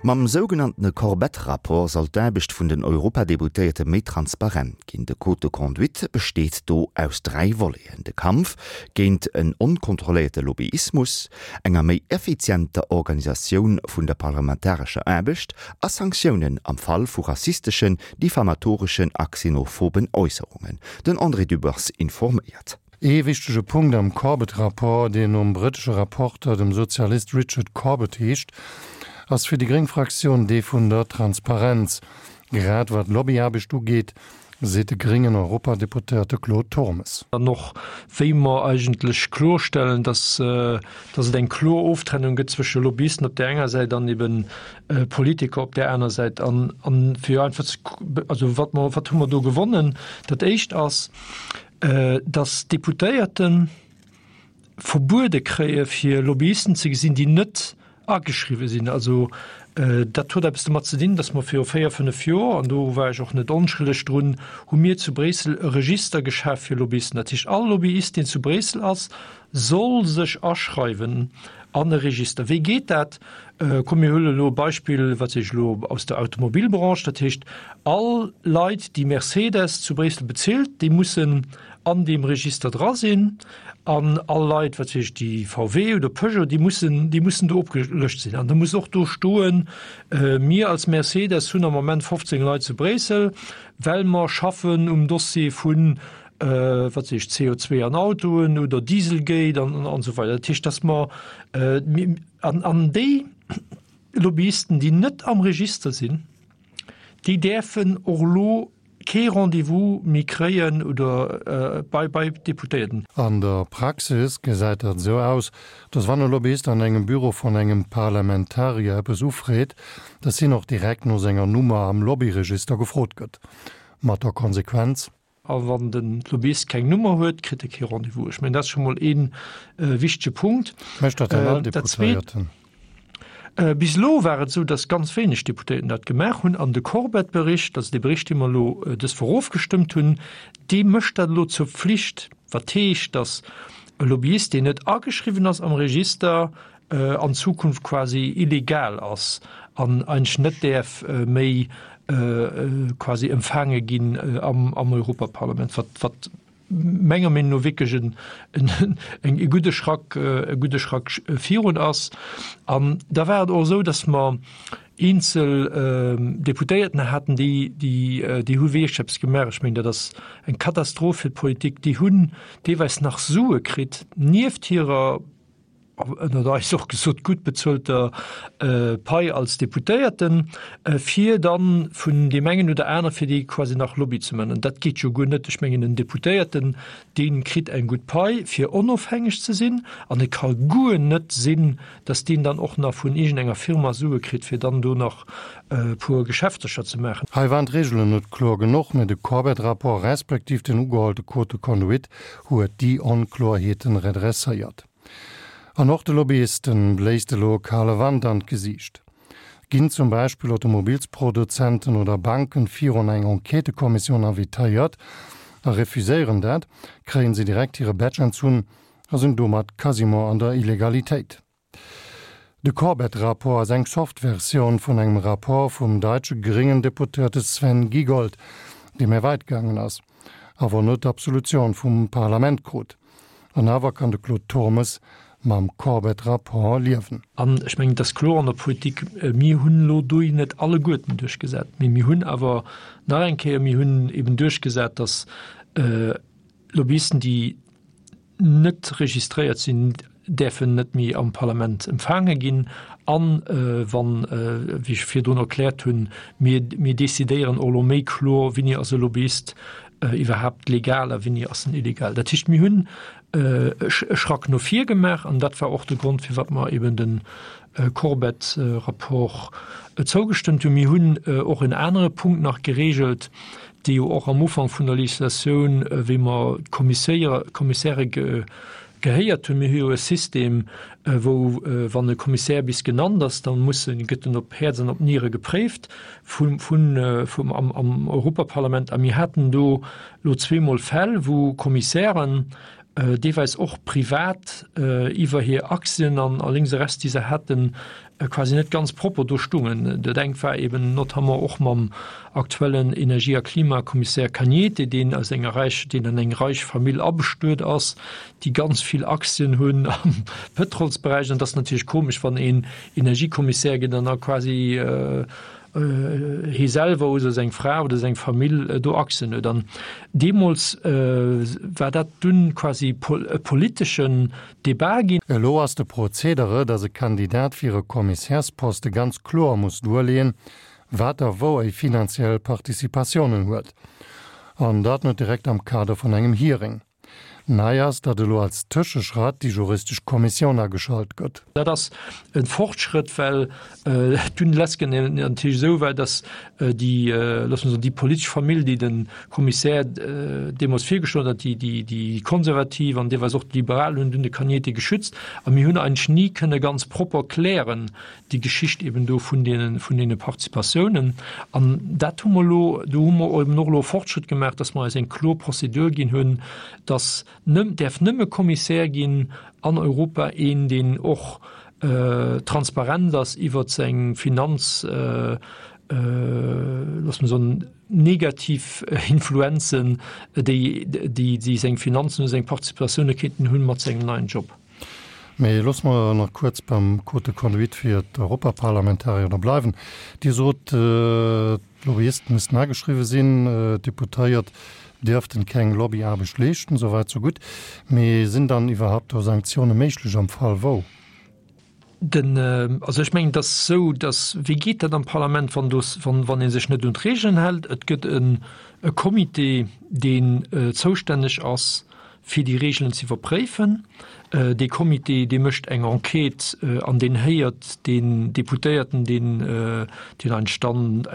Mam sougenanntene Corbett-Rapport soll d'Aarbecht vun den Europadeputéierte méi transparent ginn. De Code de conduite besteet do aus 3 Voleten, de Kampf géint en onkontrolléierte Lobbyismus, enger méi effizienter Organisatioun vun der parlamentarescher Aarbecht a Sanktiounen am Fall vu rassisteschen, diffamatoreschen a xenophoben Äusserungen. Den André Dübbers informéiert. Ee wichtege Punkt am Corbett-Rapport, deen nom brëttesche Rapporter, dem Sozialist Richard Corbett heescht, ass fir déi gréng Fraktioun dee vun der Transparenz. Grad wat Lobbyaarbecht ugeet, seet de gréngen Europadeputéierte Claude Turmes. An och wéi mer eigentlech klorstellen, dass, dass et eng kloer Oftrennung gëtt zwësche Lobbyisten op där enger Säit an eben Politiker op där aner Säit. An, an fir einfach ze, also wat mer, wat hu mer do gewonnen? Dat Éischt ass, dass d'Deputéierten verbuede kréie fir Lobbyisten ze gesinn, déi net ageschriwwe sinn. Also dat huet eppes domat ze dinn, datt mer viru véier, fënnef Joer, an do war ech och net onschëlleg drun, hu mir zu Bréissel e Register geschaf fir Lobbyisten. Dat heescht, all Lobbyist, deen zu Bréissel ass, soll sech aschreiwen an e Register. Wéi geet dat? Komm mir huelen elo e Beispill, wat weess ech elo, aus der Automobilbranche. Dat heescht, all Leit, déi Mercedes zu Bréissel bezilt, déi mussen an deem Register dra sinn an all Leit, wat weess ech, déi VW oder Peugeot, déi mussen, déi mussen do opgelëscht sinn. An da muss och do stoen, Mir als Mercedes hunn am Moment 15 Leit zu Bréissel, well mer schaffen um Dossier vun, wat weess ech, CO2 an Autoen oder Dieselgate an esou weider. Dat heescht, dass mer, an, an déi Lobbyisten, déi net am Register sinn, déi däerfen och elo kee Rendez-vous méi kréien oder bei bei Deputéierten. An der Praxis gesäit dat esou aus, dass wann e Lobbyist an engem Büro vun engem Parlamentarier eppes ufreet, dass hien och direkt no senger Nummer am Lobbyregister gefrot gëtt. Mat der Konsequenz. A wann de Lobbyist keng Nummer huet, kritt e kee Rendez-vous. Ech mengen, dat ass scho mol ee wichtege Punkt. Mécht dat dann all Deputéierten? Bis elo war et esou, datt ganz wéineg Deputéierten dat gemaach hunn. An de Corbett-Bericht, also dee Bericht, dee mer elo dës Woch ofgestëmmt hunn, dee mécht dat elo zur Pflicht. Wat heescht, datt e Lobbyist, deen net ageschriwwen ass am Register, an Zukunft quasi illegal ass an eigentlech net däerf méi quasi empfaange ginn am Europaparlament, wat, wat menger Meenung no wierklech en, en, e gudde Schrack, e gudde Schrack virun ass. An da war et och esou, datt mer eenzel Deputéierten haten, déi, déi, déi hu wierklech eppes gemaach. Ech mengen, dat ass eng Katastroph fir d'Politik. Déi hunn deelweis nach Sue kritt nieft hirer, ënnert eis och gesot, gutt bezuelter Pai als Deputéierten, fir dann vun deem engen oder anere fir déi quasi nach Lobby ze man. An dat geet jo guer net. Ech mengen, en Deputéierten, dee kritt eng gutt Pai, fir onofhängeg ze sinn, an et ka guer net sinn, datt deen dann och nach vun iergendenger Firma Sue kritt, fir dann do nach e puer Geschäftercher ze maachen. Hei waren d'Reegelen net kloer genuch, mä de Corbett-Rapport respektiv den ugehollte Code de conduite huet déi Onkloerheeten redresséiert. An och de Lobbyisten bléist elo e kale Wand an d'Gesiicht. Ginn zum Beispill Automobilsproduzenten oder Banken virun eng Enquêtëkommissioun invitéiert a refuséieren dat, kréien se direkt hire Badge entzunn a sinn domat quasiment an der Illegalitéit. De Corbett-Rapport ass eng soft Versioun vun engem Rapport vum daitsche gréngen Deputéierte Sven Giegold, dee méi weit gaangen ass, awer net d'Absolutioun vum Parlament krut. An awer kann de Claude Turmes mam Corbett-Rapport liewen. An ech mengen, et ass kloer an der Politik, mir hunn elo do net alleguerten duerchgesat, mee mir hunn awer nach eng Kéier, mir hunn eben duerchgesat, datt Lobbyisten, déi net registréiert sinn, däerfen net méi am Parlament empfaange ginn. An wann, wéi ech virdrun erkläert hunn, mir, mir decidéieren och elo méi kloer, wéini ass e Lobbyist iwwerhaapt legal a wéini ass en illegal. Dat heescht, mir hunn e Schrack no vir gemaach an dat war och de Grond, firwat mer eben de Corbett-Rapport zougestëmmt hunn. Mir hunn och en anere Punkt nach geregelt, dee jo och am Ufank vun der Législatioun, wéi mer d'Kommissäre gehéiert hunn. Mir hu jo e System, wou, wann e Kommissär bis genannt ass, da muss en, gëtt en op Häerz an op Niere gepréift vum, vum, am, am Europaparlament. A mir haten do elo zweemol Fäll, wou Kommissären. deelweis och privat iwwer hir Aktien an a lénks a rechts, déi se haten, quasi net ganz propper do stungen. Dat engt war eben notamment och mam aktuellen Energie a Klimakommissär Cañete, deen aus enger räich, deen an eng reich Famill abestuet ass, déi ganz vill Aktien hunn am Pëtrolsberäich. An et ass natierlech komesch, wann een Energiekommissär gëtt an da quasi hie selwer oder seng Fra oder seng Famill do Aktien huet. An deemools war dat dunn quasi e politeschen Debat ginn. Elo ass de Prozedere, datt e Kandidat fir e Kommissärsposte ganz kloer muss duerleeën, wat a wou e finanziell Participatiounen huet. An dat net direkt am Kader vun engem Hearing. Nei ass, datt elo als Tëscheschratt déi juristesch Kommissioun ageschalt gëtt. Dat ass e Fortschrëtt, well dunn lesken natierlech esou war, datt déi, loosse mer soen, déi politesch Famill, déi de Kommissär deemools virgeschloen huet, déi, déi Konservativ an deelweis och d'Liberal hunn dunn de Cañete geschützt. A mir hunn eigentlech ni kënne ganz propper klären, déi Geschicht eben do vun deene, vun deene Participatiounen. An dat hu mer elo, do hu mer eben och elo e Fortschritt gemaach, dass mer eis eng kloer Prozedur ginn hunn, dass nëmm, däerf nëmme Kommissär ginn an Europa een, deen och transparent ass iwwert seng Finanz, loosse mer soen, negativ Influenzen, déi, déi, déi seng Finanzen oder seng Participatioune kéinten hunn mat sengem neien Job. Mee loosse mer nach kuerz beim Code de conduite fir d'Europaparlamentarier da bleiwen. Dir sot, d'Lobbyisten missten ageschriwwe sinn, d'Deputéiert dierften keng Lobbyaarbecht leeschten. Souwäit sou gutt. Mee sinn dann iwwerhaupt do Sanktioune méiglech am Fall wou? Den, also ech mengen, et ass esou, datt, wéi geet dat am Parlament, wann do, wann, wann ee sech net un d'Regeln hält? Et gëtt en e Comité, deen zoustänneg ass, fir déi Regeln ze iwwerpréifen. Dee Comité, dee mécht eng Enquête an deen héiert deen Deputéierten, deen, deen eigentlech dann,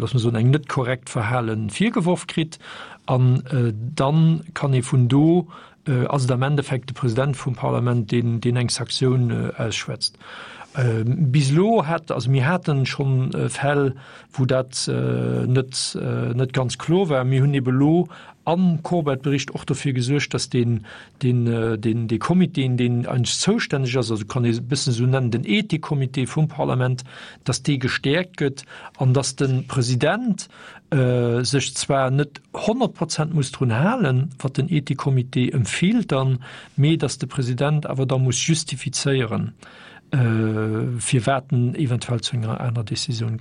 loosse mer soen, eng net korrekt Verhale virgeworf kritt. An dann kann ee vun do ass et am Endeffekt de President vum Parlament, deen, deen eng Saktioun ausschwätzt. Bis elo hat, also mir haten schonn Fäll, wou dat net, net ganz kloer war. Mir hunn ebe elo am Corbett-Bericht och dofir gesuergt, dass deen, deen, deen, dee Comité, deen eigentlech zoustänneg ass, also kann ee e bëssen esou nennen, den Ethikcomité vum Parlament, dass dee gestäerkt gëtt an dass de President sech zwar net 100 Prozent muss drun halen, wat den Ethikcomité empfielt dann, mee dass de President awer da muss justifizéieren, firwat en eventuell zu enger aner Décisioun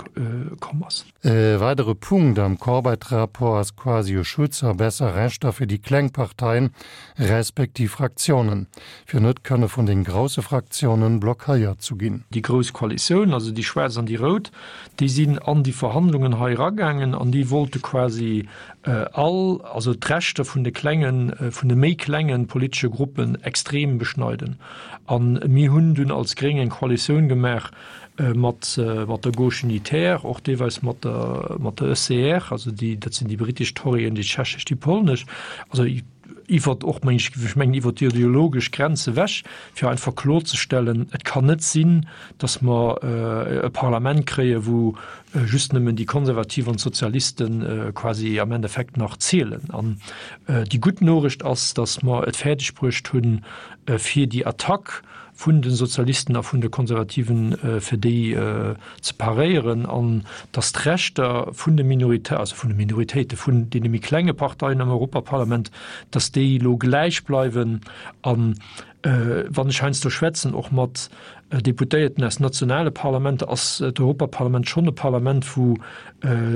komm ass. E weidere Punkt am Corbett-Rapport ass quasi e Schutz a besser Rechter fir déi kleng Parteien, respektiv Fraktiounen, fir net kënne vun den grousse Fraktiounen blockéiert zu ginn. Déi grouss Koalitioun, also déi schwaarz an déi rout, déi sinn an déi Verhandlungen hei eragaangen an déi wollte quasi all, also d'Rechter vun de klengen, vun de méi klengen politesche Gruppen extrem beschneiden. A mir hunn dunn als Gréng eng Koalitioun gemaach mat, mat der Gauche unitaire, och deelweis mat der, mat der ECR, also déi, dat sinn déi britesch Torien, déi tschechesch, déi polnesch, also iwwert och, meng ech, ech mengen iwwert déi ideologesch Grenze ewech, fir einfach kloerzestellen, et kann net sinn, datt mer e Parlament kréien, wou just nëmmen déi Konservativ an d'Sozialiste quasi am Endeffekt nach zielen. An déi gutt Noricht ass, datt mer et fäerdeg bruecht hunn, fir déi Attack vun de Sozialisten a vun de Konservativen, fir déi ze paréieren an datt d'Rechter vun de Minorité, also vun de Minoritéite, vun deene méi klenge Parteien am Europaparlament, datt déi elo gläich bleiwen. An wann ech heiansdo schwätzen, och mat Deputéierten aus nationale Parlamenter, ass d'Europaparlament schonn e Parlament, wou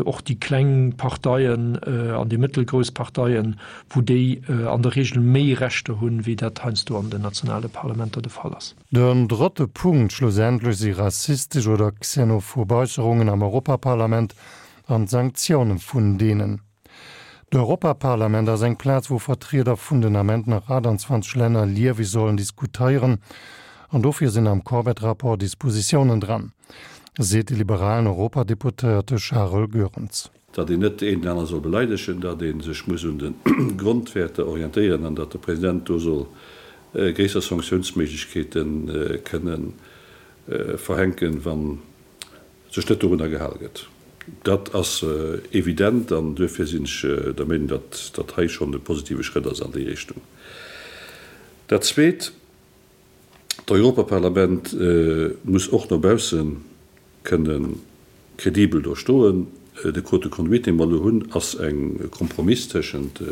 och déi kleng Parteien an déi mëttelgrouss Parteien, wou déi an der Regel méi Rechter hunn, wéi dat heiansdo an den nationale Parlamenter de Fall ass. Den drëtte Punkt schlussendlech si rassistesch oder xenophob Äusserungen am Europaparlament an d'Sanktioune vun deenen. D'Europaparlament ass eng Plaz, wou Vertrieder vun den Ament nach 28 Länner lieweg sollen diskutéieren an dofir sinn am Corbett-Rapport Dispositiounen dran, seet de liberalen Europadeputéierte Charel Goerens. Datt een net een den anere soll beleidegen, datt ee sech muss un de Grondwäerter orientéieren an datt de President do soll gréisser Sanktiounsméiglechkeete kënne verhänken, wann sech net dorunner gehal gëtt. Dat ass evident an duerfir sinn ech der Meenung, datt dat hei schonn e positive Schrëtt ass an déi Richtung. Dat Zweet, D'Europaparlament muss och no bausse kënne kredibel do stoen. De Code de conduite, dee mer elo hunn, ass e Kompromiss tëschent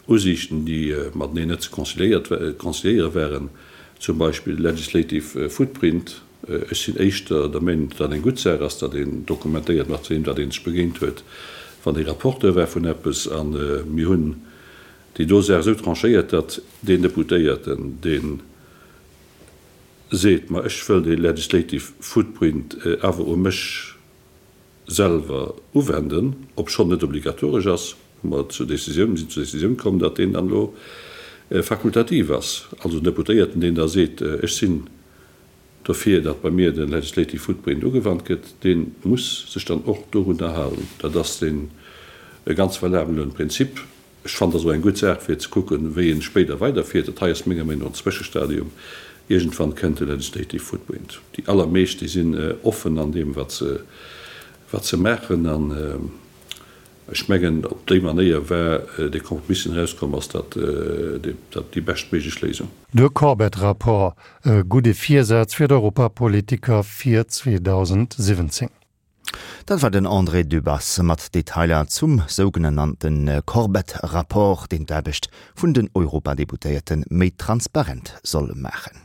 Usiichten, déi mateneen net ze conciliéiere waren, zum Beispill legislative footprint. Ech sinn éischter der Meenung, datt dat eng gutt Saach ass, datt een dokumentéiert, mat weem datt ee sech begéint huet, wann ee Rapporteur war vun eppes. A mir hunn déi do Saach esou tranchéiert, datt deen Deputéierten, dee seet, ma ech wëll dee legislative footprint awer u mech selwer uwenden, obschonn net obligatoresch ass, hu mer zur Décisioun, sinn zur Décisioun komm, datt deen dann elo fakultativ ass. Also den Deputéierten, deen da seet, ech sinn dofir, datt bei mir de legislative footprint ugewannt gëtt, dee muss sech dann och dorunner halen. Dat ass deen e ganz valabelen Prinzip. Ech fannen, dat ass och eng gutt Saach, fir ze kucken, wéi ee spéider weiderfiert. Dat hei ass menger Meenung no en Zwëschestadium. Iergendwann kënnt de legislative footprint. Déi allermeescht, déi sinn offen an deem, wat se, wat se maachen. An ech mengen, op déi Manéier war dee Kompromiss, deen erauskomm ass, dat, dat déi beschtméiglech Léisung. De Corbett-Rapport, e gudde Virsaz fir d'Europapolitiker fir 2017. Dat war den André Dübbers mat Detailer zum sougenannte Corbett-Rapport, deen d'Aarbecht vun den Europadeputéierte méi transparent soll maachen.